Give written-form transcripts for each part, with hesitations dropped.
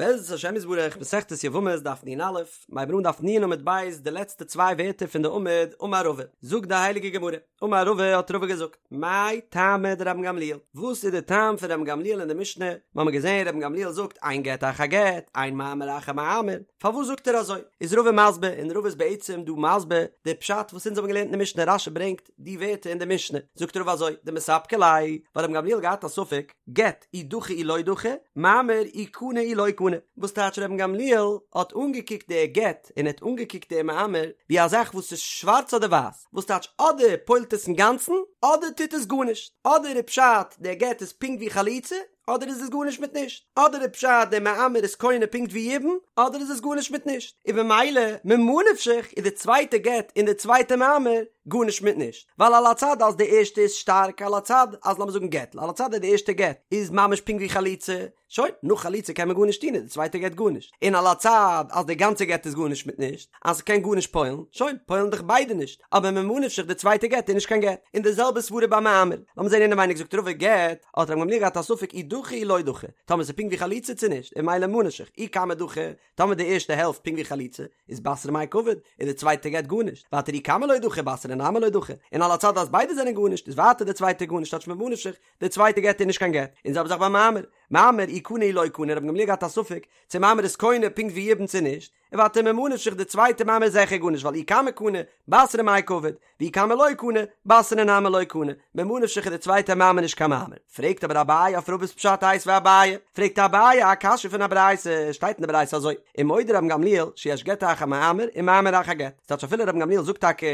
בעזרת השם יתברך, מסכת יבמות דף נ"א, מ'הייבן אן דף נ עמוד ב', די לעצטע צוויי ווערטער פון די עמוד, אמר רבא, זאגט די הייליגע גמרא, אמר רבא האט רבא געזאגט, מאי טעמא דרבן גמליאל, וואס איז די טעם פון רבן גמליאל אין די משנה, מיר האבן געזען רבן גמליאל זאגט אין גט אחר גט, אין מאמר אחר מאמר, פארוואס זאגט ער אזוי? איז רבא מסביר, און רבא איז בעצם דא מסביר די פשט וואס אונז האבן געלערנט אין די משנה, רש"י ברענגט די ווערטער אין די משנה, זאגט רבא אזוי, דמספקא ליה, ווייל רבן גמליאל האט געהאט א ספק, גט אי דחי אי לא דחי, מאמר אי קני אי לא קני. וואס טייטש רבן גמליאל האט אנגעקוקט די גט און ער האט אנגעקוקט די מאמר ווי א זאך וואס איז שווארץ אדער ווייס, וואס טייטש אדער פועל'ט עס אינגאנצן אדער טוט עס גארנישט, אדער איז פשט די גט איז פונקט ווי חליצה אדער איז עס גארנישט מיט נישט, אדער איז פשט די מאמר איז קונה פונקט ווי יבום אדער איז עס גארנישט מיט נישט, און במילא ממה נפשך איז די צווייטע גט און די צווייטע מאמר גארנישט מיט נישט. ווייל על הצד אז די ערשטע איז שטארק על הצד אז לאמיר זאגן גט על הצד אז די ערשטע גט איז ממש פונקט ווי חליצה שוין נאך חליצה קען מען גארנישט טון איז די צווייטע גט גארנישט און על הצד אז די גאנצע גט איז גארנישט מיט נישט אז ס'קען גארנישט פועל'ן שוין פועל'ן דאך ביידע נישט אבער ממה נפשך די צווייטע גט איז נישט קיין גט און די זעלבע סברה ביי מאמר לאמיר זען אינעווייניג זאגט רבא גט האט רבן גמליאל געהאט א ספק אי דחי אי לא דחי טאמער ס'איז פונקט ווי חליצה צו נישט און ממילא ממה נפשך אי כמה דחי טאמער די ערשטע העלפט פונקט ווי חליצה איז בתרא מאי קעביד, איז די צווייטע גט גארנישט, ווייטער אי כמה לא דחי בתרא נמי לא דחי, און על הצד אז ביידע זענען גארנישט איז ווייטער די צווייטע גארנישט טייטש ממה נפשך, די צווייטע גט איז נישט קיין גט, און זעלבע זאך ביי מאמר, מאמר אי קני אי לא קני רבן גמליאל געהאט א ספק צו מאמר איז קונה פונקט ווי יבום צו נישט, און ווייטער ממה נפשך די צווייטע מאמר איז זיכער גארנישט ווייל אי כמה קני, בתרא מאי קעביד, ואי כמה לא קני, בתרא נמי לא קני, ממה נפשך איז די צווייטע מאמר נישט קיין מאמר. פרעגט אבער אביי אויף רבא'ס פשט איתיביה אביי, פרעגט אביי א קשיא פון א ברייתא, שטייט אין די ברייתא אזוי, ומודה רבן גמליאל שיש גט אחר מאמר ומאמר אחר גט, ס'טייטש אפילו רבן גמליאל זאגט טאקע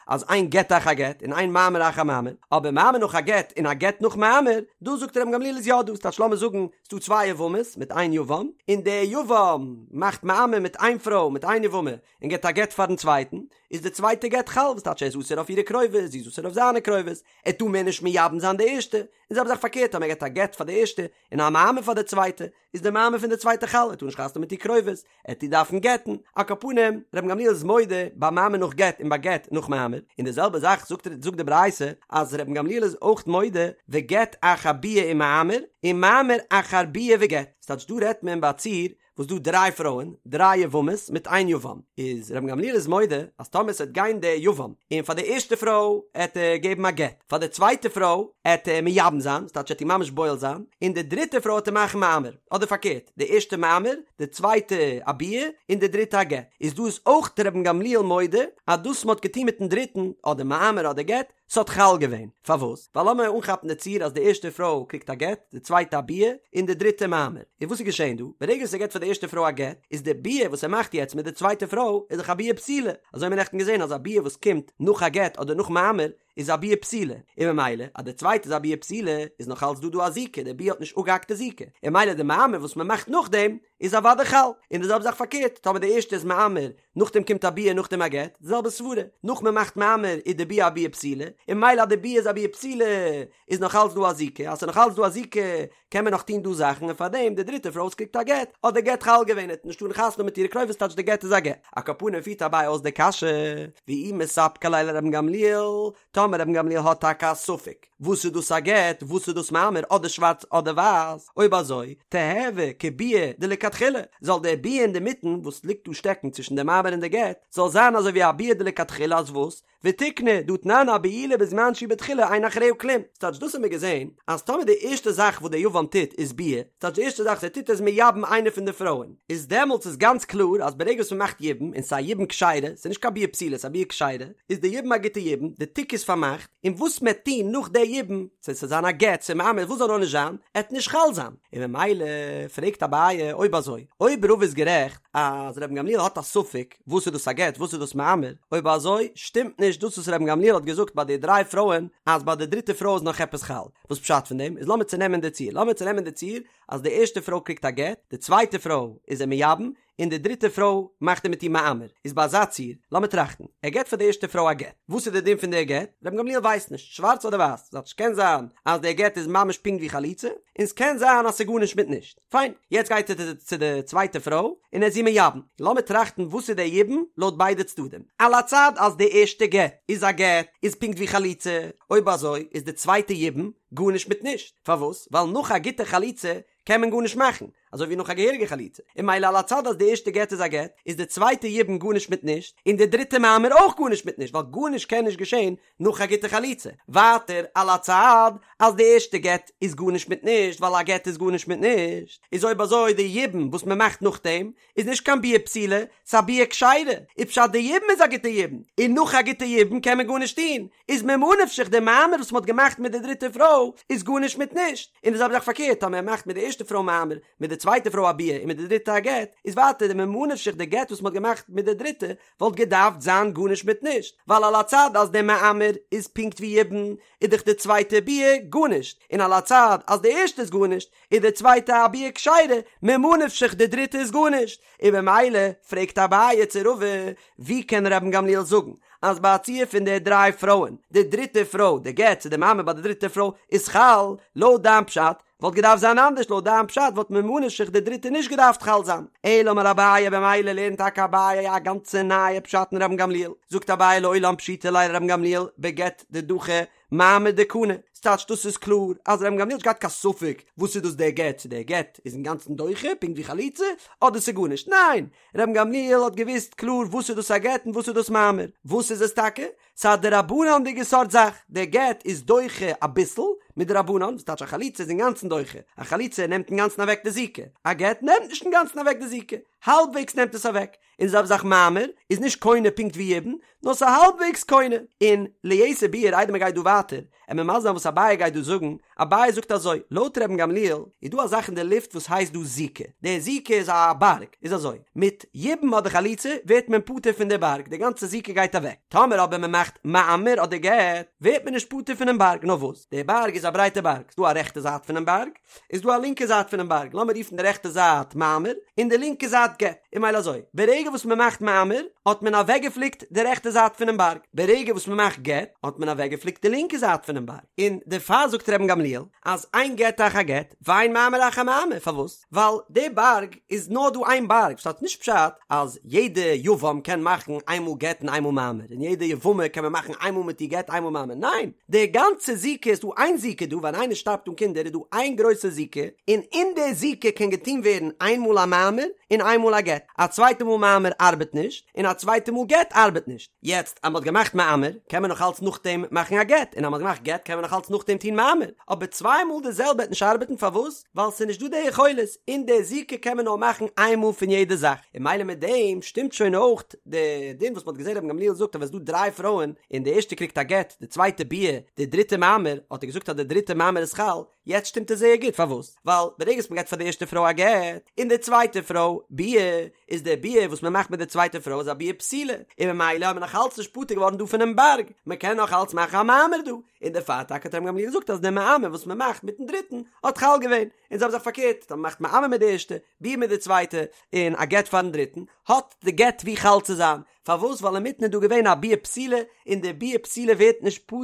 אז אין גט אחר גט און אין מאמר אחר מאמר, אבער מאמר נאך א גט און א גט נאך מאמר, דא זאגט רבן גמליאל איז יא דא, ס'טייטש לאמיר זאגן ס'דא צוויי יבמות מיט איין יבם, און דער יבם מאכט מאמר מיט איין פרוי מיט איין יבמה, און געבט א גט פארן צווייטן, איז די צווייטע גט חל, וואס טייטש ער איז אסור אויף אירע קרובות, זי איז אסור אויף זיינע קרובות, ער טאר מער נישט מייבם זיין די ערשטע, און זעלבע זאך פארקערט אז מען געבט א גט פאר די ערשטע, און א מאמר פאר די צווייטע, איז די מאמר פון די צווייטע חל, ער טאר נישט חתונה מיט איר קרובות, ער וועט איר דארפן גט'ן, על כל פנים, רבן גמליאל איז מודה ביי מאמר נאך גט און ביי גט נאך מאמר, און די זעלבע זאך זאגט זאגט די ברייתא אז רבן גמליאל איז אויך מודה וגט אחר ביאה ומאמר, און מאמר אחר ביאה וגט, ס'טייטש דא רעדט מען ביי א ציור וואס דא דריי פרויען, דריי יבמות מיט איין יבם, איז רבן גמליאל איז מודה אז טאמער ס'עט גיין דער יבם און פאר די ערשטע פרוי עט ער געבן א גט, פאר די צווייטע פרוי עט ער מייבם זיין, ס'טייטש עט איר ממש בועל זיין, און די דריטע פרוי עט ער מאכן מאמר, אדער פארקערט, די ערשטע מאמר, די צווייטע א ביאה, און די דריטע א גט, איז דא איז אויך רבן גמליאל מודה אז דאס מ'האט געטון מיטן דריטן, אדער מאמר אדער גט, ס'האט חל געווען. פארוואס? ווייל לאמיר אנכאפן די ציור אז די ערשטע פרוי קריגט א גט, די צווייטע א ביאה, און די דריטע מאמר. און וואס איז געשען דא? ברגע וואס ער געט פאר די ערשטע פרוי א גט, איז די ביאה וואס ער מאכט יעצט מיט די צווייטע פרוי איז דאך א ביאה פסולה. אזוי האבן מיר נעכטן געזען אז א ביאה וואס קומט נאך א גט אדער נאך מאמר איז א ביאה פסולה. און ממילא אז די צווייטע איז א ביאה פסולה איז נאך אלץ דא דא א זיקה, די ביאה האט נישט אפגעהאקט די זיקה. און ממילא די מאמר וואס מען מאכט נאכדעם איז אוודאי חל. און די זעלבע זאך פארקערט, טאמער די ערשטע איז מאמר נאכדעם קומט א ביאה נאכדעם א גט, די זעלבע סברה, נאך מען מאכט מאמר איז די ביאה א ביאה פסולה, און ממילא אז די ביאה איז א ביאה פסולה איז נאך אלץ דא א זיקה, אז ס'איז נאך אלץ דא א זיקה קען מען נאך טון דא זאכן און פארדעם די דריטע פרוי וואס קריגט א גט האט די גט חל געווען ער האט נישט טארן חתונה מיט אירע קרובות טייטש די גט איז א גט. על כל פנים פירט אביי אויס די קשיא, ואי מספקא ליה לרבן גמליאל, טאמער רבן גמליאל האט טאקע א ספק וואס איז דאס א גט וואס איז דאס מאמר אדער שווארץ אדער ווייס, אויב אזוי תיהוי כביאה דלכתחילה, זאל דער ביאה אינדערמיטן וואס ליגט דא שטעקן צווישן די מאמר און די גט זאל זיין אזוי ווי א ביאה דלכתחילה אז וואס? ותיקני דהא תנן הבעילה בזמן שהיא בתחילה אין אחריה כלום, ס'טייטש דאס האבן מיר געזען אז טאמער די ערשטע זאך וואס דער יבם טוט איז ביאה, ס'טייטש די ערשטע זאך וואס ער טוט איז מייבם איינע פון די פרויען, איז דעמאלטס איז גאנץ קלאר אז ברגע וואס מ'מאכט יבום און ס'איז א יבום כשרה, ס'איז נישט קיין ביאה פסולה ס'איז א ביאה כשרה, איז די יבום א גוטע יבום, די תיק איז פארמאכט, און וואס מ'עט טון נאך די יבום, צו ס'זאל זיין א גט צו מאמר וואס זאל נאר נישט זיין, עט נישט חל זיין. און ממילא פרעגט אביי אויב אזוי, אויב רבא איז גערעכט אז רבן גמליאל האט א ספק וואס איז דאס א גט וואס איז דאס מאמר, אויב אזוי שטימט נישט דאס וואס רבן גמליאל האט געזאגט ביי די דריי פרויען אז ביי די דריטע פרוי איז נאך עפעס חל, וואס פשט פון דעם איז לאמיר צונעמען די ציור, לאמיר צונעמען די ציור אז די ערשטע פרוי קריגט א גט, די צווייטע פרוי איז ער מייבם, און די דריטע פרוי מאכט ער מיט איר מאמר, איז ביי אזא ציור, לאמיר טראכטן, ער געט פאר די ערשטע פרוי א גט, וואס איז די דין פון די גט? רבן גמליאל ווייסט נישט, שווארץ אדער ווייס, ס'טייטש ס'קען זיין אז די גט איז ממש פונקט ווי חליצה, און ס'קען זיין אז ס'איז גארנישט מיט נישט, פיין, יעצט גייט ער צו די צווייטע פרוי און ער איז איר מייבם, לאמיר טראכטן וואס איז די יבום לויט ביידע צדדים, על הצד אז די ערשטע גט איז א גט איז פונקט ווי חליצה, אויב אזוי איז די צווייטע יבום גארנישט מיט נישט, פארוואס? ווייל נאך א גוטע חליצה קען מען גארנישט מאכן, אזוי ווי נאך א געהעריגע חליצה, און ממילא על הצד אז די ערשטע גט איז א גט, איז די צווייטע יבום גארנישט מיט נישט, און די דריטע מאמר אויך גארנישט מיט נישט, ווייל גארנישט קען נישט געשען נאך א גוטע חליצה. ווייטער על הצד אז די ערשטע גט איז גארנישט מיט נישט, ווייל א גט איז גארנישט מיט נישט, איז אויב אזוי די יבום וואס מען מאכט נאכדעם איז נישט קיין ביאה פסולה, ס'איז א ביאה כשרה, איז פשט די יבום איז א גוטע יבום, און נאך א גוטע יבום קען מען גארנישט טון, איז ממה נפשך די מאמר וואס מ'האט געמאכט מיט די דריטע פרוי איז גארנישט מיט נישט, און די זעלבע זאך פארקערט אז מען מאכט מיט די ערשטע פרוי מאמר, מיט די צווייטע פרוי א ביאה און מיט די דריטע א גט, איז ווייטער די ממה נפשך די גט וואס מ'האט געמאכט מיט די דריטע וואלט געדארפט זיין גארנישט מיט נישט, ווייל על הצד אז די מאמר איז פונקט ווי יבום איז דאך די צווייטע ביאה גארנישט, און על הצד אז די ערשטע איז גארנישט איז די צווייטע א ביאה כשרה, ממה נפשך די דריטע איז גארנישט, און במילא פרעגט אביי צו רבא, ווי קען רבן גמליאל זאגן אז ביי א ציור פון די דריי פרויען, די דריטע פרוי, די גט צו די מאמר ביי די דריטע פרוי איז חל, לויט דיין פשט וואלט געדארפט זיין אנדערש, לויט דיין פשט וואלט ממה נפשך די דריטע נישט געדארפט חל זיין, אלא אמר אביי במילא לערנט טאקע אביי א גאנצע נייע פשט אין רבן גמליאל, זאגט אביי לעולם פשיטא ליה לרבן גמליאל בגט דדחי מאמר דקני, ס'טייטש דאס איז קלאר אז רבן גמליאל האט נישט געהאט קיין ספק וואס איז דאס דער גט, צו דער גט איז אינגאנצן דוחה פונקט ווי חליצה, אדער ס'איז גארנישט, ניין! רבן גמליאל האט געוואוסט קלאר וואס איז דאס א גט און וואס איז דאס מאמר, וואס איז עס טאקע? ס'איז א דרבנן'דיגע סארט זאך, דער גט איז דוחה אביסל מדרבנן, וואס טייטש א חליצה איז אינגאנצן דוחה, א חליצה נעמט אינגאנצן אוועק די זיקה, א גט נעמט נישט אינגאנצן אוועק די זיקה, האלבוועגס נעמט עס אוועק, און די זעלבע זאך מאמר איז נישט קונה פונקט ווי יבום, נאר ס'איז האלבוועגס קונה. און ליתר ביאור איידער מ'גייט דא ווייטער, עמיר מסביר זיין וואס אביי גייט דא זאגן, אביי זאגט אזוי, לויט רבן גמליאל איז דא א זאך אין די לופט וואס הייסט דא זיקה, די זיקה איז א בארג, איז אזוי, מיט יבום אדער חליצה ווערט מען פטור פון די בארג, די גאנצע זיקה גייט אוועק, טאמער אבער מ'מאכט מאמר אדער גט, ווערט מען נישט פטור פונעם בארג, נאר וואס, די בארג איז א ברייטע בארג, ס'דא א רעכטע זייט פונעם בארג, איז דא א לינקע זייט פונעם בארג, לאמיר רופן די רעכטע זייט מאמר, און די לינקע זייט גט, און ממילא אזוי, ברגע וואס מען מאכט מאמר, האט מען אוועקגעפליקט די רעכטע זייט פונעם בארג, ברגע וואס מען מאכט גט, האט מען אוועקגעפליקט די לינקע זייט פונעם בארג, און דערפאר זאגט רבן גמליאל, אז אין גט אחר גט, ואין מאמר אחר מאמר, פארוואס? ווייל די בארג איז נאר דא איין בארג, ס'הייסט נישט פשט אז יעדע יבם קען מאכן איינמאל גט און איינמאל מאמר, און יעדע יבמה קען מען מאכן איינמאל מיט איר גט איינמאל מאמר, ניין! די גאנצע זיקה איז דא איין זיקה דא, ווען איינער שטארבט אן קינדער איז דא איין גרויסע זיקה, און אין די זיקה קען געטון ווערן איין מאל א מאמר און איין מאל א גט, א צווייטע מאל מאמר ארבעט נישט, און א צווייטע מאל גט ארבעט נישט, יעצט אז מ'האט געמאכט מאמר קען מען נאך אלץ נאכדעם מאכן א גט, און אז מ'האט געמאכט גט קען מען נאך אלץ נאכדעם טון מאמר, אבער צוויי מאל די זעלבע וועט נישט ארבעטן פארוואס? ווייל ס'איז נישט דא די יכולת, אין די זיקה קען מען נאר מאכן איין מאל פון יעדע זאך, און ממילא מיט דעם שטימט שוין אויך די דין וואס מ'האט געזען רבן גמליאל זאגט אז ווען ס'איז דא דריי פרויען און די ערשטע קריגט א גט, די צווייטע ביאה, די דריטע מאמר, האט ער געזאגט אז די דריטע מאמר איז חל, יעצט שטימט עס זייער גוט, פארוואס? ווייל ברגע וואס מ'געט פאר די ערשטע פרוי א גט, און די צווייטע פרוי ביאה, איז די ביאה וואס מ'מאכט מיט די צווייטע פרוי איז א ביאה פסולה, און ממילא האט מען נאך אלץ נישט פטור געווארן דא פונעם בארג, מ'קען נאך אלץ מאכן א מאמר דא, און דערפאר טאקע האט רבן גמליאל געזאגט אז די מאמר וואס מען מאכט מיטן דריטן האט חל געווען, און זעלבע זאך פארקערט, אז מען מאכט מאמר מיט די ערשטע, ביאה מיט די צווייטע, און א גט פארן דריטן, האט די גט ווי חל צו זיין, פארוואס ווייל אינמיטן איז דא געווען א ביאה פסולה, און די ביאה פסולה ווערט נישט פטור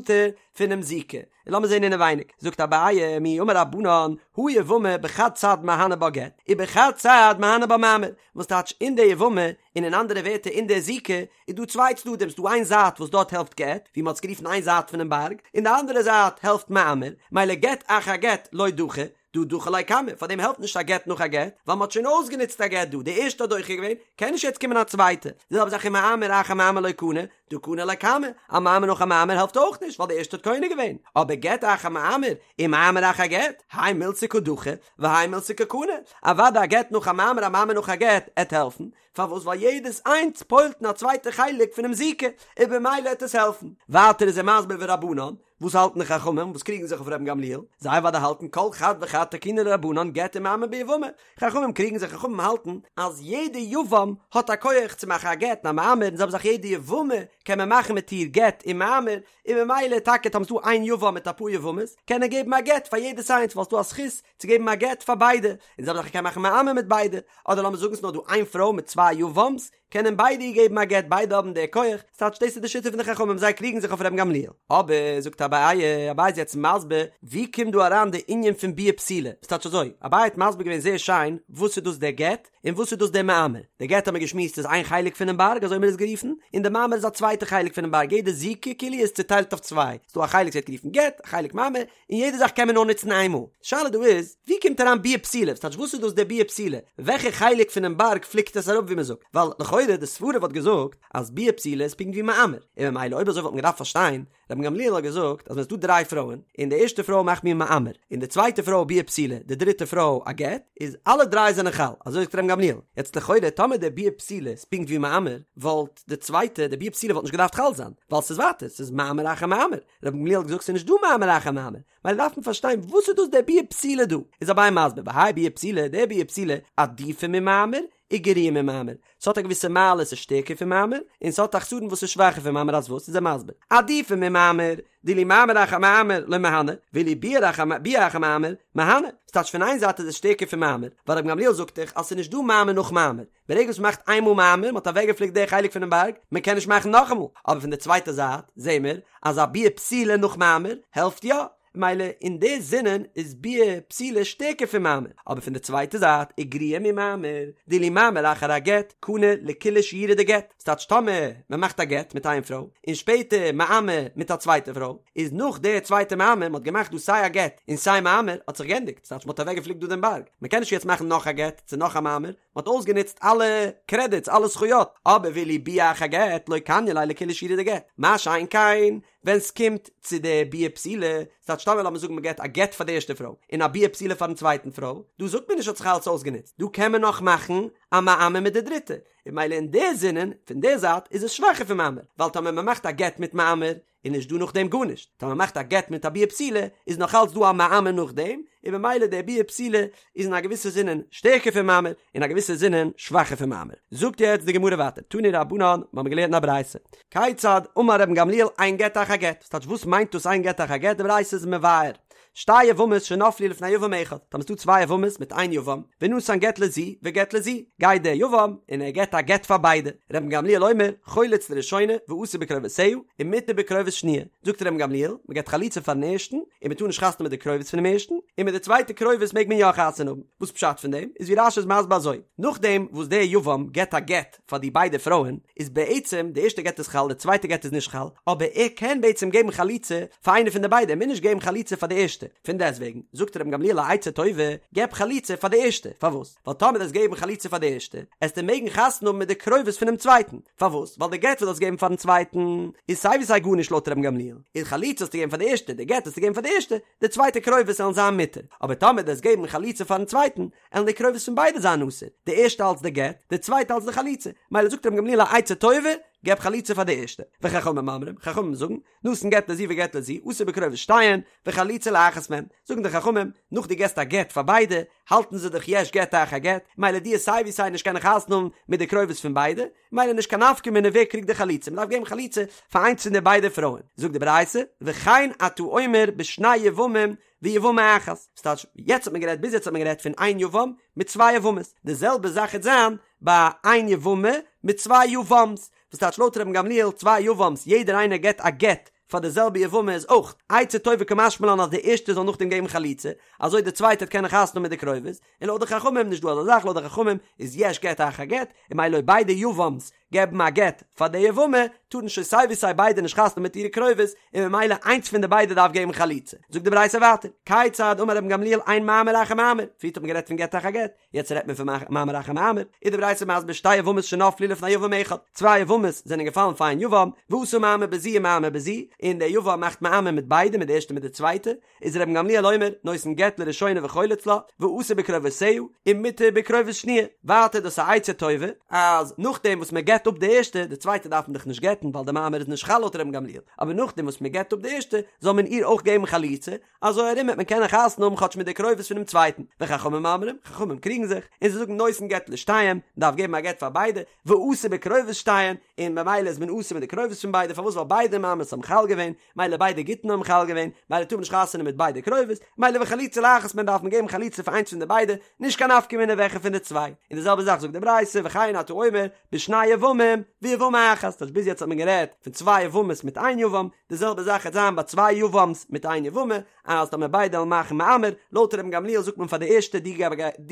פונעם זיקה. און לאמיר זען אינעווייניג, זאגט אביי, מי אמר רבנן, הא יבמה בחד צד מהני בה גט, ובחד צד מהני בה מאמר, וואס טייטש אין די יבמה, און אין אנדערע ווערטער אין די זיקה, איז דא צוויי צדדים, ס'דא איין זייט וואס דארט העלפט גט, ווי מ'האט עס גערופן איין זייט פונעם בארג, און די אנדערע זייט העלפט מאמר, מילא גט אחר גט לא דחי, דהא דחי ליה קמא, פארדעם העלפט נישט א גט נאך א גט, ווייל מ'האט שוין אויסגענוצט א גט דא, די ערשטע האט דוחה געווען, קען נישט יעצט קומען א צווייטע, די זעלבע זאך ומאמר אחר מאמר לא קני, דהא קני ליה קמא, א מאמר נאך א מאמר העלפט אויך נישט, ווייל די ערשטע האט קונה געווען, אבער גט אחר מאמר, ומאמר אחר גט, האי מילתא קא דחי, והאי מילתא קא קני, אוודאי א גט נאך א מאמר א מאמר נאך א גט, עט העלפן, פארוואס ווייל יעדעס איינס פועל'ט אין א צווייטע חלק פונעם זיקה, און במילא העט עס העלפן. ווייטער איז ער מסביר ורבנן, וואס האלטן די חכמים וואס קריגן זיך אויף רבן גמליאל? זיי אוודאי האלטן כל חד וחד תקינו ליה רבנן גט ומאמר ביבמה. חכמים קריגן זיך, חכמים האלטן אז יעדע יבם האט א כח צו מאכן א גט און א מאמר, און זעלבע זאך יעדע יבמה קען מען מאכן מיט איר גט און מאמר, און במילא טאקע טאמער ס'דא איין יבם מיט אפאר יבמות קען ער געבן א גט פאר יעדעס איינס ווייל ס'דא א זכות צו געבן א גט פאר ביידע, און זעלבע זאך ער קען מאכן מאמר מיט ביידע, אדער לאמיר זאגן ס'נאר דא איין פרוי מיט צוויי יבם'ס, קענען ביידע איר געבן א גט, ביידע האבן די כח, ס'טייטש דאס איז די שיטה פון די חכמים, זיי קריגן זיך אויף רבן גמליאל. אבער, זאגט אביי, אביי איז יעצט מסביר, ווי קומט דא אריין די ענין פון ביאה פסולה? ס'טייטש אזוי, אביי האט מסביר געווען זייער שיין וואס איז דאס דער גט, און וואס איז דאס דער מאמר? דער גט האט מען געשמועסט איז איין חלק פונעם בארג, אזוי האט מען עס גערופן, און דער מאמר איז א צווייטע חלק פונעם בארג, יעדע זיקה כאילו איז צוטיילט אויף צוויי, ס'דא א חלק וואס ווערט גערופן גט, א חלק מאמר, און יעדע זאך קען מען נאר נוצן איין מאל. די שאלה דא איז, ווי קומט אריין ביאה פסולה? ס'טייטש וואס איז דאס דער ביאה פסולה? וועלכע חלק פונעם בארג פליקט עס אראפ ווי מען זאגט? ווייל לכאורה די סברה וואלט געזאגט אז ביאה פסולה איז פונקט ווי מאמר, און ממילא אויב אזוי וואלט מען געדארפט פארשטיין, רבן גמליאל האט געזאגט אז ווען ס'איז דא דריי פרויען, און די ערשטע פרוי מאכט מיר מאמר, און די צווייטע פרוי ביאה פסולה, די דריטע פרוי א גט, איז אלע דריי זענען חל, אזוי זאגט רבן גמליאל. יעצט לכאורה טאמער די ביאה פסולה איז פונקט ווי מאמר, וואלט די צווייטע, די ביאה פסולה וואלט נישט געדארפט חל זיין, ווייל ס'איז ווייטער, ס'איז מאמר אחר מאמר. רבן גמליאל האט געזאגט ס'איז נישט דא מאמר אחר מאמר, ממילא דארף מען פארשטיין וואס איז דאס די ביאה פסולה דא, איז אביי מסביר, והאי ביאה פסולה, די ביאה פסולה, עדיפא ממאמר, וגריעא ממאמר, ס'האט א געוויסע מעלה ס'איז שטערקער פון מאמר, און ס'האט א חסרון וואס איז שוואכער פון מאמר אז וואס איז ער מסביר, עדיפא ממאמר, דאילו מאמר אחר מאמר לא מהני, ואילו ביאה אחר ביאה אחר מאמר, מהני, ס'טייטש פון איין זייט איז עס שטערקער פון מאמר, ווייל רבן גמליאל זאגט דאך אז ס'איז נישט דא מאמר נאך מאמר, ברגע וואס מ'מאכט איינמאל מאמר, מ'האט אוועקגעפליקט די חלק פונעם בארג, מ'קען נישט מאכן נאכאמאל, אבער פון די צווייטע זייט זעהן מיר אז א ביאה פסולה נאך מאמר העלפט יא, מילא אין די זינען איז ביאה פסולה שטערקער פון מאמר, אבער פון די צווייטע זייט וגריעא ממאמר, דאילו מאמר אחר הגט, קני לכולהו שיורא דגט, ס'טייטש טאמער מ'מאכט א גט מיט איין פרוי, און שפעטער מאמר מיט א צווייטע פרוי, איז נאך די צווייטע מאמר, מ'האט געמאכט דא סיי א גט און סיי מאמר, האט זיך גענדיגט, ס'טייטש מ'האט אוועקגעפליקט דא דעם בארג, מ'קען נישט יעצט מאכן נאך א גט צו נאך א מאמר, מ'האט אויסגענוצט אלע קרעדיטס אלע זכויות, אבער ואילו ביאה אחר גט לא קניא ליה לכולהו שיורא דגט, מה שאין כן ווען ס'קומט צו די ביאה פסולה, ס'טייטש טאמער לאמיר זאגן מ'געט א גט פאר די ערשטע פרוי און א ביאה פסולה פארן צווייטן פרוי, דא זאגט מען נישט האט זיך אלעס אויסגענוצט, דא קען מען נאך מאכן א מאמר מיט די דריטע, און מילא אין די זינען פון די זייט איז עס שוואכער פון מאמר, ווייל טאמער מ'מאכט א גט מיט מאמר איז נישט דא נאכדעם גארנישט, טאמער מ'מאכט א גט מיט א ביאה פסולה איז נאך אלץ דא א מאמר נאכדעם, און במילא די ביאה פסולה איז אין א געוויסע זינען שטערקער פון מאמר, אין א געוויסע זינען שוואכער פון מאמר. זאגט יעצט די גמרא ווייטער, תנו רבנן, מ'האמיר געלערנט אין א ברייתא, כיצד אמר רבן גמליאל אין גט אחר גט, וואס טייטש וואס מיינט דאס אין גט אחר גט, די ברייתא איז מבאר, שתי יבמות שנפלו לפני יבם אחד, טאמער ס'דא צוויי יבמות מיט איין יבם, ונתן גט לזו וגט לזו, גייט דער יבם און ער געט א גט פאר ביידע, רבן גמליאל אומר, חולץ לראשונה ואסור בקרובותיה, ומותר בקרובות שניה, זאגט רבן גמליאל, מען געט חליצה פארן ערשטן, און מען טאר נישט חתונה מיט די קרובות פונעם ערשטן, און מיט די צווייטע קרובות מעג מען יא חתונה האבן, וואס פשט פון דעם, איז ווי רש"י איז מסביר אזוי, נאכדעם וואס דער יבם געט א גט פאר די ביידע פרויען, איז בעצם די ערשטע גט איז חל די צווייטע גט איז נישט חל, אבער ער קען בעצם געבן חליצה פאר איינע פון די ביידע, ער מוז נישט געבן חליצה פאר די ערשטע, פון דעסטוועגן זאגט רבן גמליאל א עצה טובה, געב חליצה פאר די ערשטע, פארוואס? ווייל טאמער דו וועסט געבן חליצה פאר די ערשטע, עסטו מעגן חתונה האבן מיט די קרובות פונעם צווייטן, פארוואס? ווייל די גט וואס דו האסט געגעבן פארן צווייטן איז סיי ווי סיי גארנישט לויט רבן גמליאל, און חליצה האסטו געגעבן פאר די ערשטע, די גט האסטו געגעבן פאר די ערשטע, די צווייטע קרובות עלן זיין מותר, אבער טאמער דו וועסט געבן חליצה פארן צווייטן, עלן די קרובות פון ביידע זיין אסור, די ערשטע אלץ די גט, די צווייטע אלץ די חליצה, מילא זאגט רבן גמליאל א עצה טובה, געב חליצה פאר די ערשטע, וחכמים אומרים, חכמים זאגן, נתן גט לזו וגט לזו, אסור בקרובות שתיהן, וחליצה לאחת מהן, זאגן די חכמים, נאך דו געסט א גט פאר ביידע, האלטן זיי דאך יש גט אחר גט, מילא דו עסט סיי ווי סיי נישט קענען חתונה האבן מיט די קרובות פון ביידע, מילא נישט קיין נפקא מינה ווער קריגט די חליצה, מ'דארף געבן חליצה פאר איינס פון די ביידע פרויען, זאגט די ברייתא, וכן אתה אומר בשני יבמים ויבמה אחת, ס'טייטש, יעצט האט מען גערעדט, ביז יעצט האט מען גערעדט פון איין יבם מיט צוויי יבמות, די זעלבע זאך העט זיין ביי איין יבמה מיט צוויי יבם'ס, וואס טייטש לויט רבן גמליאל צוויי יבם'ס יעדער איינער געט א גט פאר די זעלבע יבמה איז אויך עצה טובה קא משמע לן אז די ערשטע זאל נאכדעם געבן חליצה אזוי די צווייטע העט קענען חתונה האבן מיט די קרובות, און לויט די חכמים נישט דא אזא זאך לויט די חכמים איז יש גט אחר גט, און מילא אויב ביידע יבם'ס געבן א גט פאר די יבמה טארן שוין סיי ווי סיי ביידע נישט חתונה מיט אירע קרובות און ממילא איינס פון די ביידע דארף געבן חליצה. זאגט די ברייתא ווייטער, כיצד אמר רבן גמליאל אין מאמר אחר מאמר, פריערט האט מען גערעדט פון גט אחר גט, יעצט רעדט מען פון מאמר אחר מאמר, איז די ברייתא מסביר שתי יבמות שנפלו לפני יבם אחד, צוויי יבמות זענען געפאלן פאר איין יבם, ועשה מאמר בזו ומאמר בזו, און דער יבם מאכט מאמר מיט ביידע מיט די ערשטע מיט די צווייטע, איז רבן גמליאל אומר, נותן גט לראשונה וחולץ לה, ואסור בקרובותיה, ומותר בקרובות שניה. ווייטער דאס איז א עצה טובה, אז נאכדעם וואס מען גט. גט אפ די ערשטע, די צווייטע דארף מען דאך נישט גט'ן ווייל די מאמר איז נישט חל לויט רבן גמליאל, אבער נאכדעם וואס מען גט אפ די ערשטע זאל מען איר אויך געבן חליצה, אזוי ארום וועט מען קענען חתונה האבן כאטש מיט די קרובות פונעם צווייטן, וחכמים אומרים, חכמים קריגן זיך, און זיי זאגן נותן גט לשתיהן, מען דארף געבן א גט פאר ביידע, ואסור בקרובות שתיהן, און ממילא איז מען אסור מיט די קרובות פון ביידע, פארוואס ווייל ביידע מאמרס האבן חל געווען, מילא ביידע גיטין האבן חל געווען, מילא טאר מען נישט חתונה מיט ביידע קרובות, מילא וחליצה לאחת מהן דארף מען געבן חליצה פאר איינס פון די ביידע, נישט קיין נפקא מינה וועלכע פון די צוויי. און די זעלבע זאך זאגט די ברייתא וכן אתה אומר בשני יבמים ויבמה אחת, טייטש ביז יעצט האט מען גערעדט פון צוויי יבמות מיט איין יבם, די זעלבע זאך העט זיין ביי צוויי יבם'ס מיט איין יבמה, אז טאמער ביידע וועלן מאכן מאמר, לויט רבן גמליאל זאגט מען פאר די ערשטע דו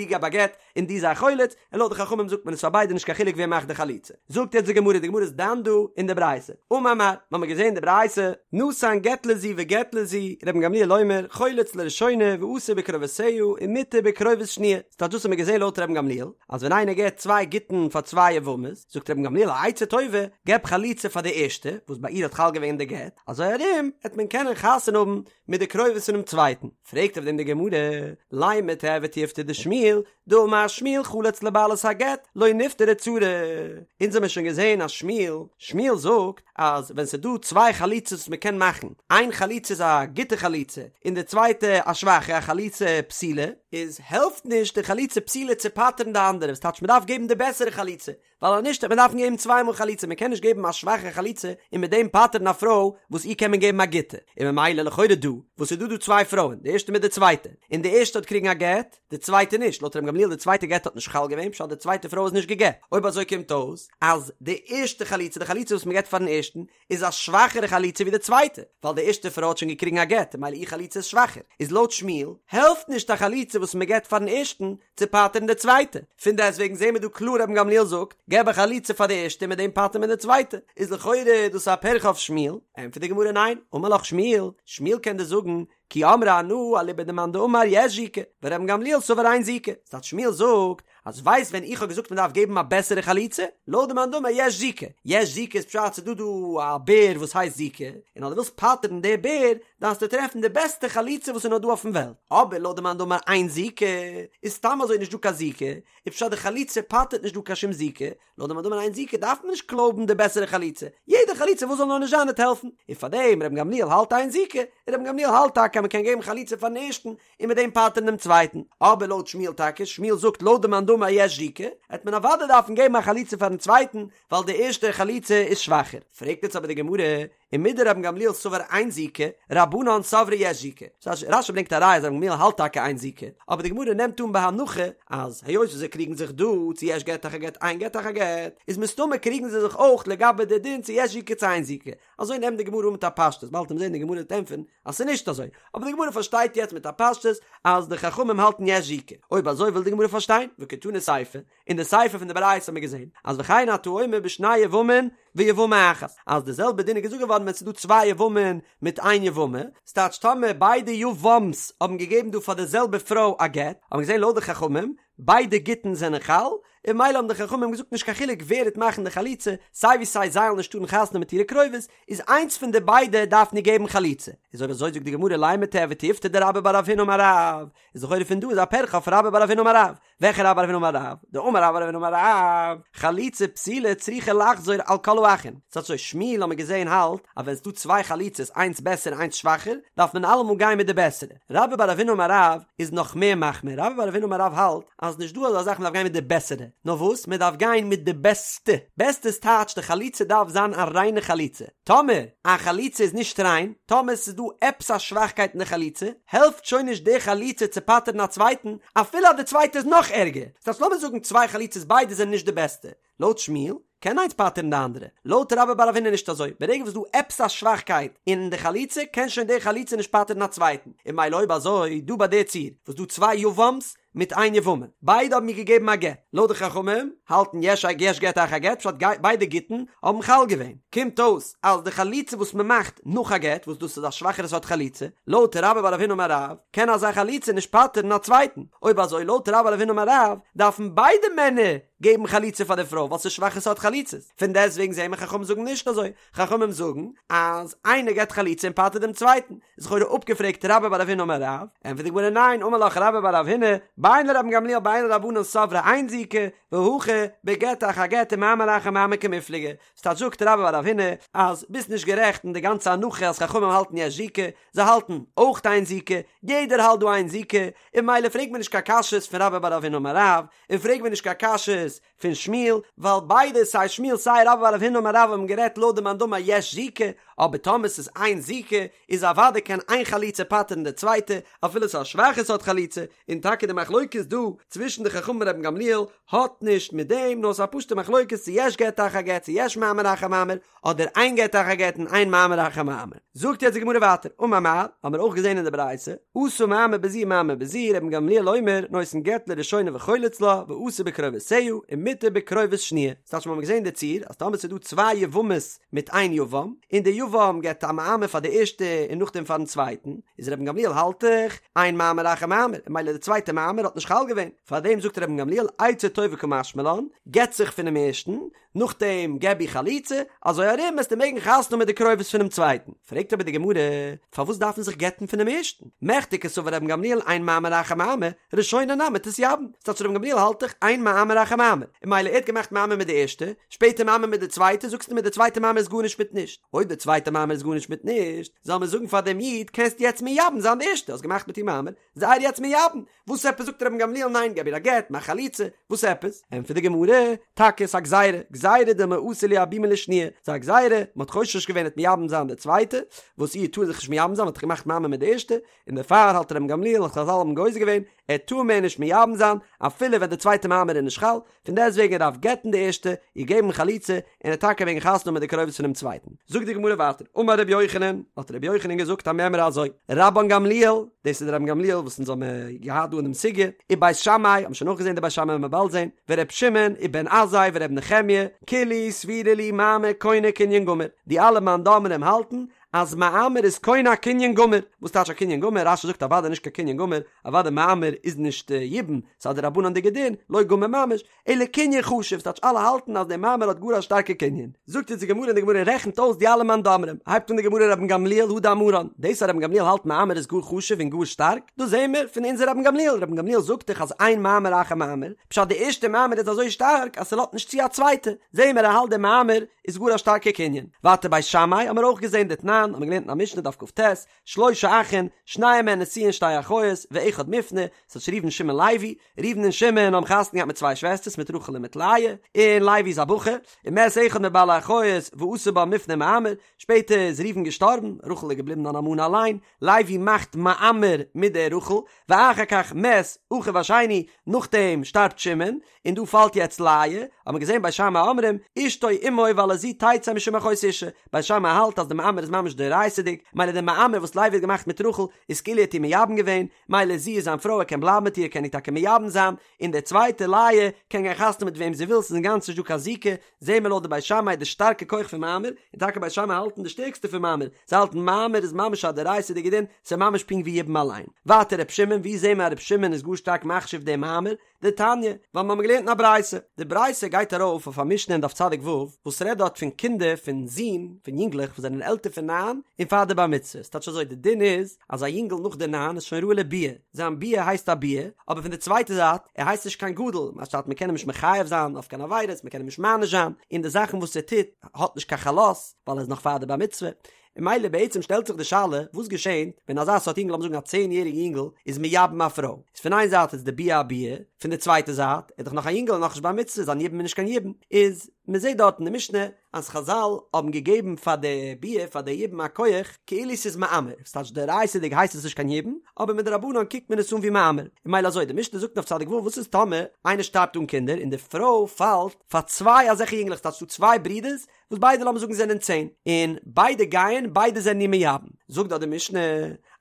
געב א גט און דו זיי חולץ, און לויט די חכמים זאגט מען עס פאר ביידע נישט קיין חילוק ווער מאכט די חליצה. זאגט יעצט די גמרא, די גמרא איז דן דא אין די ברייתא, אמר מר, מ'האמיר געזען די ברייתא, נתן גט לזו וגט לזו, רבן גמליאל אומר, חולץ לראשונה ואסור בקרובותיה ומותר בקרובות שניה, ס'טייטש דאס האט מען געזען לויט רבן גמליאל, אז ווען איינער געבט צוויי גיטין פאר צוויי יבמות, זאגט רבן גמליאל א עצה טובה, געב חליצה פאר די ערשטע, וואס ביי איר האט חל געווען די גט, אזוי ארום העט מען קענען חתונה האבן מיט די קרובות פונעם צווייטן. פרעגט אויף דעם די גמרא, לימא תיהוי תיובתא דשמואל, דאמר שמואל חלץ לבעלת הגט, לא נפטרה צרה. אונז האמיר שוין געזען אז שמואל, שמואל זאגט אז ווען ס'איז דא צוויי חליצות וואס מ'קען מאכן, איין חליצה איז א גוטע חליצה און די צווייטע א שוואכע, א חליצה פסולה, איז העלפט נישט די חליצה פסולה צו פטר'ן די אנדערע, וואס טייטש מ'דארף געבן די בעסערע חליצה, ווייל אז נישט וועט מען דארפן געבן צוויי מאל חליצה, מען קען נישט געבן א שוואכע חליצה און מיט דעם פטר'ן א פרוי וואס איר קען מען געבן א גוטע, און ממילא לכאורה דא וואס איז דא דא צוויי פרויען, די ערשטע מיט די צווייטע, און די ערשטע האט קריגן א גט, די צווייטע נישט, לויט ר' גמליאל די צווייטע גט האט נישט חל געווען פשט די צווייטע פרוי איז נישט גע'גט, אויב אזוי קומט אויס אז די ערשטע חליצה, די חליצה וואס מען געבט פארן ערשטן, איז א שוואכערע חליצה ווי די צווייטע, ווייל די ערשטע פרוי האט שוין געקריגן א גט, ממילא איר חליצה איז שוואכער, איז לויט שמואל, העלפט נישט א חליצה וואס מען געבט פארן ערשטן, צו פטר'ן די צווייטע, פון דעסטוועגן זעהן מיר דא קלאר רבן גמליאל זאגט, געב א חליצה פאר די ערשטע און מיט דעם פטר'ט מען די צווייטע, איז לכאורה דאס א פירכא אויף שמואל, ענטפערט די גמרא ניין, אמר לך שמואל, שמואל קען דיר זאגן, כי אמרי אנא אליבא דמאן דאמר יש זיקה, ורבן גמליאל סבר אין זיקה, ס'טייטש שמואל זאגט, אז ווייסט ווען איך האב געזאגט מ'דארף געבן א בעסערע חליצה? לויט די מאן דאמר יש זיקה, יש זיקה איז פשט ס'דא דא א בער וואס הייסט זיקה, און אז דו ווילסט פטר'ן די בער דארפסטו טרעפן די בעסטע חליצה וואס איז נאר דא אויפן וועלט, אבער לויט די מאן דאמר אין זיקה איז סתם אזוי נישט דא קיין זיקה, איז פשט די חליצה פטר'ט נישט דא קיין שום זיקה, לויט די מאן דאמר אין זיקה דארף מען נישט קלויבן די בעסערע חליצה, יעדע חליצה וואס זאל נאר נישט זיין וועט העלפן, און פארדעם רבן גמליאל האלט אין זיקה, און רבן גמליאל האלט טאקע אז מען קען געבן חליצה פארן ערשטן און מיט דעם פטר'ן דעם צווייטן, אבער לויט שמואל טאקע, שמואל זאגט לויט די מאן דאמר יש זיקה, העט מען אוודאי דארפן געבן א חליצה פארן צווייטן, ווייל די ערשטע חליצה איז שוואכער. פרעגט יעצט אבער די גמרא, ומדרבן גמליאל סבר אין זיקה, רבנן סברי יש זיקה. רש"י ברענגט א ראיה אז רבן גמליאל האלט טאקע אין זיקה, אבער די גמרא נעמט אן בהנחה אז היות וואס זיי קריגן זיך דא צו יש גט אחר גט אין גט אחר גט, איז מסתמא קריגן זיי זיך אויך לגבי די דין צו יש זיקה צו אין זיקה. אזוי נעמט די גמרא אן מיט א פשטות, באלד וועט מען זען די גמרא וועט ענטפערן אז ס'איז נישט אזוי, אבער די גמרא פארשטייט יעצט מיט א פשטות אז די חכמים האלטן יש זיקה. אויב אזוי וויל די גמרא פארשטיין, וקתני סיפא, אין די סיפא פון די ברייתא האט מען געזען אז וכן אתה אומר בשני יבמין ויבמה אחת, אז די זעלבע דין איז געזאגט געווארן ווען ס'איז דא צוויי יבמין מיט איין יבמה, ס'טייטש טאמער ביידע יבם'ס האבן געגעבן דא פאר די זעלבע פרוי א גט, האט מען געזען לויט די חכמים, ביידע גיטין זענען חל, און ממילא האבן די חכמים געזאגט נישט קיין חילוק ווער וועט מאכן די חליצה, סיי ווי סיי זיי וועלן נישט טארן חתונה מיט אירע קרובות, איז איינס פון די ביידע דארף נישט געבן חליצה. איז אויב אזוי זאגט די גמרא לימא תיהוי תיובתא דרבה בר רב הונא אמר רב, איז לכאורה פון דא איז א פירכא אויף רבה בר רב הונא אמר רב, וועלכע רבה בר רב הונא אמר רב? דאמר רבה בר רב הונא אמר רב, חליצה פסולה צריכה לחזור על כל האחין. ס'הייסט אזוי, שמואל האמיר געזעהן האלט אז ווען ס'דא צוויי חליצות איינס בעסער און איינס שוואכער, דארף מען אלעמאל גיין מיט די בעסערע. רבה בר רב הונא אמר רב איז נאך מער מחמיר, רבה בר רב הונא אמר רב האלט אז נישט דא אזא זאך מ'דארף גיין מיט די בעסערע, נאר וואס? מ'דארף גיין מיט די בעסטע. בעסטע איז טייטש די חליצה דארף זיין א ריינע חליצה. טאמער א חליצה איז נישט ריין, טאמער ס'איז דא עפעס א שוואכקייט אין די חליצה, העלפט שוין נישט די חליצה צו פטר'ן א צווייטן, אפילו אז די צווייטע איז נאך ערגער. ס'הייסט לאמיר זאגן צוויי חליצות ביידע זענען נישט די בעסטע. לויט שמואל, קען איינס פטר'ן די אנדערע. לויט רבה בר רב הונא נישט אזוי. ברגע וואס ס'דא עפעס א שוואכקייט אין די חליצה, קען שוין די חליצה נישט פטר'ן א צווייטן. און ממילא אויב אזוי, דא ביי די ציור, וואס דא צוויי יבם'ס, מיט איין יבמה, ביידע האבן איר געגעבן א גט, לויט די חכמים האלטן יש א יש גט אחר גט, פשט ביידע גיטין האבן חל געווען, קומט אויס אז די חליצה וואס מען מאכט נאך א גט, וואס דאס איז א שוואכערע סארט חליצה, לויט רבה בר רב הונא אמר רב, קען אזא חליצה נישט פטר'ן א צווייטן, אויב אזוי לויט רבה בר רב הונא אמר רב, דארפן ביידע מענער. געבן חליצה פאר די פרוי ווייל ס'איז שוואכע סארט חליצות, פון דעסטוועגן זעהן מיר חכמים זאגן נישט אזוי, חכמים זאגן אז איינער געבט חליצה און פטר'ט דעם צווייטן, איז לכאורה אפגעפרעגט רבה בר רב הונא אמר רב, ענטפערט די גמרא ניין, אמר לך רבה בר רב הונא, בין לרבן גמליאל בין לרבנן סברי אין זיקה, והכא בגט אחר גט ומאמר אחר מאמר קמיפלגי, ס'טייטש זאגט רבה בר רב הונא אז ביסט נישט גערעכט אין די גאנצע הנחה אז חכמים האלטן יש זיקה, זיי האלטן אויך אין זיקה, יעדער האלט דא אין זיקה, און ממילא פרעג מיר נישט קיין קשיות פון רבה בר רב הונא אמר רב, און פרעג מיר נישט קיין קשיות פון שמואל, ווייל ביידע סיי שמואל סיי רבה בר רב הונא אמר רב האבן גערעדט לויט די מאן דאמר יש זיקה, אבער טאמער ס'איז אין זיקה איז אוודאי קען איין חליצה פטר'ן די צווייטע, אפילו ס'איז א שוואכע סארט חליצה, און טאקע די מחלוקת דא צווישן די חכמים און רבן גמליאל האט נישט מיט דעם, נאר ס'איז א פשוטע מחלוקת צו יש גט אחר גט צו יש מאמר אחר מאמר, אדער אין גט אחר גט און אין מאמר אחר מאמר. זאגט יעצט די גמרא ווייטער, אמר מר, האמיר אויך געזען אין די ברייתא, עשה מאמר בזו ומאמר בזו, רבן גמליאל אומר, נותן גט לראשונה וחולץ לה, ואסור בקרובותיה, ומותר בקרובות שניה. ס'טייטש מ'האמיר געזען די ציור, אז טאמער ס'איז דא צוויי יבמות מיט איין יבם, און די יבם געבט א מאמר פאר די ערשטע און נאכדעם פארן צווייטן, איז רבן גמליאל האלט דאך, אין מאמר אחר מאמר, און ממילא די צווייטע מאמר האט נישט חל געווען. פארדעם זאגט רבן גמליאל, עצה טובה קא משמע לן, גט זיך פונעם ערשטן, נאכדעם געב איר חליצה, אזוי ארום וועסטו מעגן חתונה האבן מיט די קרובות פונעם צווייטן. פרעגט אבער די גמרא, פארוואס דארף מען זיך גט'ן פונעם ערשטן? מכדי קסבר רבן גמליאל אין מאמר אחר מאמר, ראשונה נמי תתייבם. ס'טייטש רבן גמליאל האלט דאך אין מאמר אחר מאמר, און ממילא ער האט געמאכט מאמר מיט די ערשטע, שפעטער מאמר מיט די צווייטע, זאגסטו מיר די צווייטע מאמר איז גארנישט מיט נישט. אויב די צווייטע מאמר איז גארנישט מיט נישט, זאל מען זאגן פאר דעם איד, קענסט יעצט מייבם זיין די ערשטע, האסט געמאכט מיט איר מאמר, זיי איר יעצט מייבם, וואס עפעס זאגט רבן גמליאל ניין געב איר א גט, מאך חליצה, וואס עפעס? ענטפערט די גמרא, טאקע ס'איז א גזירה, גזירה דילמא אתי לייבומי לשניה, ס'איז א גזירה, מ'האט חושש געווען ער וועט מייבם זיין די צווייטע, וואס איר טאר זיך נישט מייבם זיין מ'האט דאך געמאכט מאמר מיט די ערשטע, און דערפאר האלט רבן גמליאל אז חזל האבן גוזר געווען, ער טאר מער נישט מייבם זיין, אפילו ווען די צווייטע מאמר איז נישט חל, פון דעסטוועגן ער דארף גט'ן די ערשטע, איר געבן חליצה, און ער טאקע מעגן חתונה האבן מיט די קרובות פונעם צווייטן. זאגט די גמרא ווייטער, אמר רבי יוחנן, האט רבי יוחנן געזאגט א מימרא אזוי, רבן גמליאל, דאס איז דער רבן גמליאל וואס אונז האבן געהאט דא אין דעם סוגיא, ובית שמאי, האבן שוין אויך געזען די בית שמאי וועלן מיר באלד זען, ור' שמעון, ובן עזאי ור' נחמיה, כולהו סבירא להו מאמר קונה קנין גמור, די אלע מאן דאמרים האלטן אז מאמר איז קונה א קנין גמור, וואס טייטש א קנין גמור? רש"י זאגט אוודאי נישט קיין קנין גמור, אוודאי מאמר איז נישט יבום, ס'איז א דרבנן'דיגע דין, לא גמור ממש, אלא קנין חשוב, ס'טייטש אלע האלטן אז דער מאמר האט גאר א שטארקע קנין. זאגט אונז די גמרא און די גמרא רעכנט אויס די אלע מאן דאמרים, הייבט אן די גמרא רבן גמליאל הא דאמרן, דאס אז רבן גמליאל האלט מאמר איז גאר חשוב און גאר שטארק, דאס זעהן מיר פון אונזער רבן גמליאל, רבן גמליאל זאגט דאך אז אין מאמר אחר מאמר, פשט די ערשטע מאמר איז אזוי שטארק אז ס'לאזט נישט צו א צווייטע, זעהן מיר ער האלט די מאמר איז גאר א שטארקע קנין. ווייטער בית שמאי האמיר אויך געזעהן דתנן, האמיר געלערנט אין א משנה דף כ"ט, שלשה אחין, שנים מהן נשואין שתי אחיות, ואחד מופנה, ס'טייטש ראובן שמעון לוי, ראובן און שמעון האבן חתונה געהאט מיט צוויי שוועסטערס מיט רחל און מיט לאה, און לוי איז א בחור, ומת אחד מבעלי אחיות ועשה בה מופנה ומאמר, שפעטער איז ראובן געשטארבן, רחל איז געבליבן אן אלמנה אליין, לוי מאכט מאמר מיט דער רחל, ואחר כך מת אחיו השני, נאכדעם שטארבט שמעון, און דא פאלט יעצט לאה, האט מען געזען בית שמאי אומרים, אשתו עמו ועל הזו תצא משום אחות אשה, בית שמאי האלט אז די מאמר איז ממש דאורייתא'דיג, מילא די מאמר וואס לוי האט געמאכט מיט רחל איז כאילו ער האט איר מייבם געווען, מילא זי איז זיין פרוי ער קען בלייבן מיט איר ער קען איר טאקע מייבם זיין, און די צווייטע לאה קען גיין חתונה מיט וועם זי וויל ס'איז אינגאנצן נישט דא קיין זיקה, זעהן מיר לויט די בית שמאי די שטארקע כח פון מאמר, און טאקע בית שמאי האלטן די שטערקסטע פון מאמר, זיי האלטן מאמר איז ממש א דאורייתא'דיגע דין, ס'איז ממש פונקט ווי יבום אליין. ווייטער ר' שמעון, ווי זעהן מיר אז ר' שמעון איז גאר שטארק מחשיב דעם מאמר? דתניא, ווייל מיר האבן געלערנט אין א ברייתא, די ברייתא גייט ארויף אויף א משנה אין דף צדיק ו', וואס רעדט דארט פון קינדער פון זין, פון יונגלעך וואס זענען עלטער פון ניין און פאר די בר מצוה, ס'טייטש אזוי, די דין איז אז א יונגל נאך די ניין איז שוין ראוי לביאה, זיין ביאה הייסט א ביאה, אבער פון די צווייטע זייט, ער הייסט נישט קיין גדול, מה שטייט מען קען אים נישט מחייב זיין אויף קיין עבירות, מען קען אים נישט מעניש זיין, און די זאכן וואס ער טוט האט נישט קיין חלות, ווייל ער איז נאך פאר די בר מצוה, און מילא בעצם שטעלט זיך די שאלה, וואס געשענט ווען אזא סארט יונגל, לאמיר זאגן א צען יעריגע יונגל, איז מייבם א פרוי, איז פון איין זייט איז די ביאה א ביאה, פון די צווייטע זייט, ער איז דאך נאך א יונגל און נאכנישט בר מצוה, זיין יבום איז נישט קיין יבום, איז מען זעט דארט אין די משנה אז חזל האבן געגעבן פאר די ביאה פאר די יבום א כח כאילו ס'איז מאמר, ס'טייטש דאורייתא'דיג הייסט עס נישט קיין יבום, אבער מדרבנן קוקט מען עס אן ווי מאמר, און מילא אזוי, די משנה זאגט אויף צדיק ו' וואס איז טאמער איינער שטארבט אן קינדער און די פרוי פאלט פאר צוויי אזעלכע יונגלעך ס'טייטש ס'דא צוויי ברידערס וואס ביידע לאמיר זאגן זענען צען, און ביידע גייען ביידע זענען איר מייבם, זאגט דארט די משנה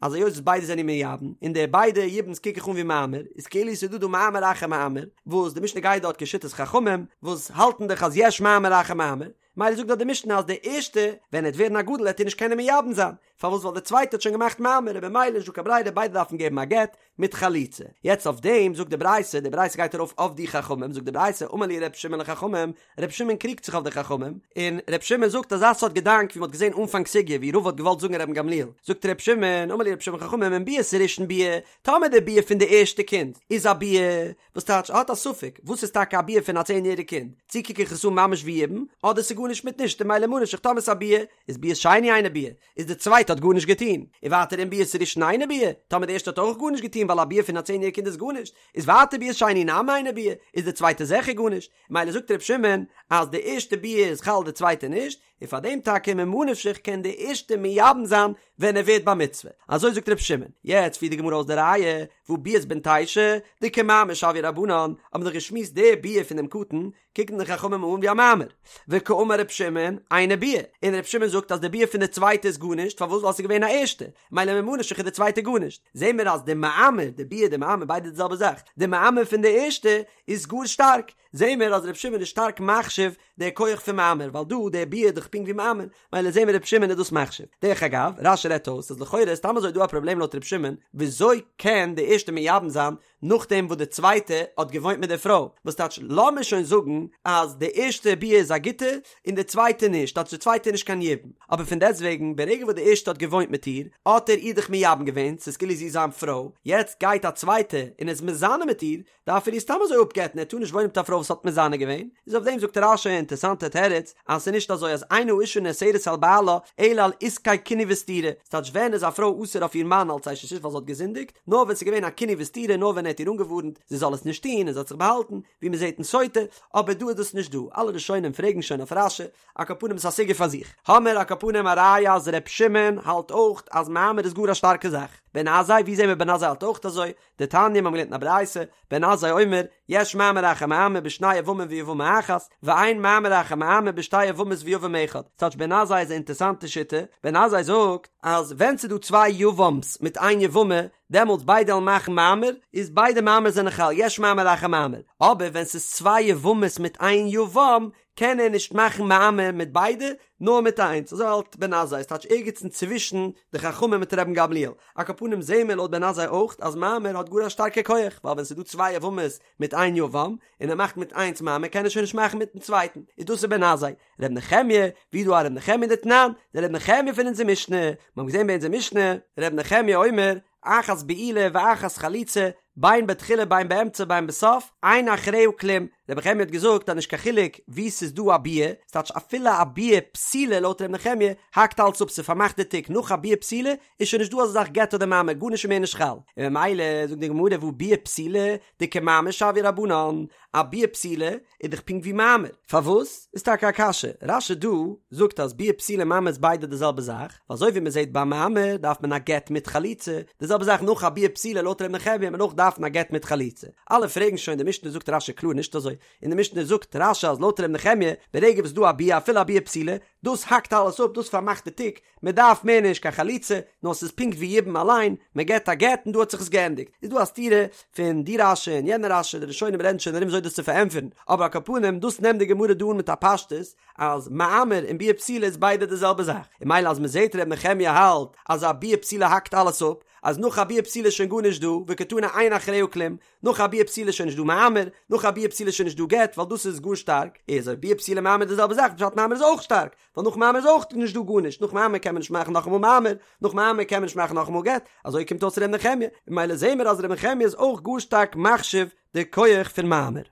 אז היות וואס ביידע זענען איר מייבם, און די ביידע יבום'ס קוק איך אן ווי מאמר, איז כאילו ס'איז דא דא מאמר אחר מאמר, וואס די משנה גייט דארט כשיטת חכמים, וואס האלטן דאך אז יש מאמר אחר מאמר. מילא זאגט דאך די משנה אז די ערשטע ווען ער וועט ווערן א גדול וועט איר נישט קענען מייבם זיין, פארוואס ווייל די צווייטע האט שוין געמאכט מאמר און במילא נישט דא קיין ברירה ביידע דארפן געבן א גט מיט חליצה. יעצט אויף דעם זאגט די ברייתא, די ברייתא גייט ארויף אויף די חכמים, זאגט די ברייתא אמר להו ר' שמעון לחכמים, ר' שמעון קריגט זיך אויף די חכמים, און ר' שמעון זאגט אזא סארט געדאנק ווי מ'האט געזען אנפאנג סוגיא ווי רבא האט געוואלט זאגן רבן גמליאל, זאגט ר' שמעון, אמר להו ר' שמעון לחכמים אם ביאת ראשון ביאה, טאמער די ביאה פון די ערשטע קינד איז א ביאה, וואס טייטש ער האט א ספק וואס איז טאקע א ביאה פון א צען יעריג קינד, צו קוק איך עס אן ממש ווי יבום, אדער ס'איז גארנישט מיט נישט און מילא ממה נפשך טאמער ס'איז א ביאה, איז ביאת שני אינה ביאה, איז די צווייטע האט גארנישט געטון, און ווייטער אם ביאת ראשון אינה ביאה, טאמער די ערשטע האט אויך גארנישט געטון ווייל א ביאה פון א צען יעריג קינד איז גארנישט, איז ווייטער ביאת שני נמי אינה ביאה, איז די צווייטע זיכער גארנישט, מילא זאגט ר' שמעון אז די ערשטע ביאה איז חל די צווייטע נישט, און פאר דעם טאקע ממה נפשך קען די ערשטע מייבם זיין ווען ער ווערט בר מצוה, אזוי זאגט ר' שמעון, יעצט פירט די גמרא אויס די ראיה, והא ביאת בן תשע, דכמאמר שויוה רבנן, האבן מיר דאך געשמועסט די ביאה פון דעם קטן, קוקן די חכמים אן ווי א מאמר, וקאמר ר' שמעון, אינה ביאה, און ר' שמעון זאגט אז די ביאה פון די צווייטע איז גארנישט, פארוואס ווייל ס'איז געווען א ערשטע, מילא ממה נפשך איז די צווייטע גארנישט, זעהן מיר אז די מאמר, די ביאה די מאמר ביידע די זעלבע זאך, די מאמר פון די ערשטע איז גאר שטארק, זעהן מיר אז ר' שמעון איז שטארק מחשיב די כח פון מאמר, ווייל דא די ביאה איז דאך פונקט ווי מאמר, מילא זעהן מיר ר' שמעון איז דאס מחשיב. דרך אגב, רש"י רעדט אויס אז לכאורה איז סתם אזוי דא א פראבלעם לויט ר' שמעון, וויאזוי קען די ערשטע מייבם זיין נאכדעם וואס די צווייטע האט געוואוינט מיט די פרוי, וואס טייטש לאמיר שוין זאגן אז די ערשטע ביאה איז א גוטע און די צווייטע נישט, טייטש די צווייטע איז נישט קיין יבום, אבער פון דעסטוועגן ברגע וואס די ערשטע האט געוואוינט מיט איר האט ער איר דאך מייבם געווען, ס'איז כאילו זי איז זיין פרוי, יעצט גייט א צווייטע און איז מזנה מיט איר, דארף ער איר סתם אזוי אפגט'ן, ער טאר נישט וואוינען מיט א פרוי וואס האט מזנה געווען, איז אויף דעם זאגט רש"י א אינטערסאנטע תירוץ, אז ס'איז נישט אזוי אז אין האשה נאסרת על בעלה אלא על עסקי קינוי וסתירה, ס'טייטש ווען איז א פרוי אסור אויף איר מאן אלץ אשת איש ווייל זי האט געזינדיגט, נאר ווען ס'איז געווען א קינוי וסתירה נאר ווען ער האט איר אנגעווארנט זי זאל עס נישט טון און זי האט זיך באהאלטן, ווי מ'זעט אין סוטה, אבער דא איז דאס נישט דא, אלע ראשונים פרעגן שוין אויף רש"י, על כל פנים ס'איז א סוגיא פאר זיך. האמער על כל פנים א ראיה אז ר' שמעון האלט אויך אז מאמר איז גאר א שטארקע זאך. בן עזאי, ווי זעהן מיר בן עזאי האלט אויך אזוי? דתניא, מיר האבן געלערנט אין א ברייתא, בן עזאי אומר, יש מאמר אחר מאמר בשני יבמים ויבמה אחת, ואין מאמר אחר מאמר בשתי יבמות ויבם אחד. ס'טייטש בן עזאי איז א אינטערסאנטע שיטה, בן עזאי זאגט אז ווען ס'איז דא צוויי יבם'ס מיט איין יבמה, דעמאלטס ביידע וועלן מאכן מאמר, איז ביידע מאמר זענען חל, יש מאמר אחר מאמר. אבער ווען ס'איז צוויי יבמות מיט איין יבם, קען ער נישט מאכן מאמר מיט ביידע, נאר מיט איינס, אזוי האלט בן עזאי, ס'טייטש ערגעץ אינצווישן די חכמים מיט רבן גמליאל. על כל פנים זעהן מיר לויט בן עזאי אויך אז מאמר האט גאר א שטארקע כח, ווייל ווען ס'איז דא צוויי יבמות מיט איין יבם, און ער מאכט מיט איינס מאמר קען ער שוין נישט מאכן מיטן צווייטן, איז דאס איז בן עזאי. ר' נחמיה, ווי דא א ר' נחמיה דתנן, דער ר' נחמיה פון אונזער משנה, מיר האבן געזעהן ביי אונזער משנה, ר' נחמיה אומר, אחת בעילה ואחת חליצה, בין בתחילה בין באמצע בין בסוף, אין אחריה כלום, רבי נחמיה האט געזאגט אז נישט קיין חילוק וואו ס'איז דא א ביאה, ס'טייטש אפילו א ביאה פסולה לויט רבי נחמיה, האקט אלץ אפ ס'פארמאכט די תיק, נאך א ביאה פסולה איז שוין נישט דא אזא זאך גט אדער מאמר, גארנישט איז מער נישט חל, און ממילא זאגט די גמרא והא ביאה פסולה דכמאמר שויוה רבנן, א ביאה פסולה איז דאך פונקט ווי מאמר. פארוואס? איז טאקע א קשיא. רש"י דא זאגט אז ביאה פסולה און מאמר איז ביידע די זעלבע זאך, ווייל אזוי ווי מען זעט ביי מאמר דארף מען א גט מיט חליצה, די זעלבע זאך נאך א ביאה פסולה לויט ר' נחמיה וועט מען אויך דארפן א גט מיט חליצה. אלע פרעגן שוין די משנה זאגט רש"י קלאר נישט אזוי, אין די משנה זאגט רש"י אז לויט ר' נחמיה ברגע וואס ס'דא א ביאה אפילו א ביאה פסולה, דאס האקט אלעס אפ, דאס פארמאכט די תיק, מען דארף מער נישט קיין חליצה, נאר ס'איז פונקט ווי יבום אליין, מען געבט א גט און דא האט זיך עס געענדיגט. איז דא א סתירה פון די רש"י און יענע רש"י, די ראשונים רעדן שוין ארום וויאזוי דאס צו פארענטפערן, אבער על כל פנים דאס נעמט די גמרא דא אן מיט א פשטות אז מאמר און ביאה פסולה איז ביידע די זעלבע זאך, און ממילא אז מען זעט ר' נחמיה האלט אז א ביאה פסולה האקט אלעס אפ, אז נאך א ביאה פסולה איז שוין גארנישט דא, וקתני אין אחריה כלום, נאך א ביאה פסולה איז שוין נישט דא מאמר, נאך א ביאה פסולה איז שוין נישט דא גט, ווייל דאס איז גאר שטארק, איז אויב ביאה פסולה מאמר די זעלבע זאך, פשט מאמר איז אויך שטארק, ווייל נאך מאמר איז אויך נישט דא גארנישט, נאך מאמר קען מען נישט מאכן נאכאמאל מאמר, נאך מאמר קען מען נישט מאכן נאכאמאל גט, אזוי קומט אויס ר' נחמיה, ממילא זעהן מיר אז ר' נחמיה איז אויך גאר שטארק מחשיב די כח פון מאמר.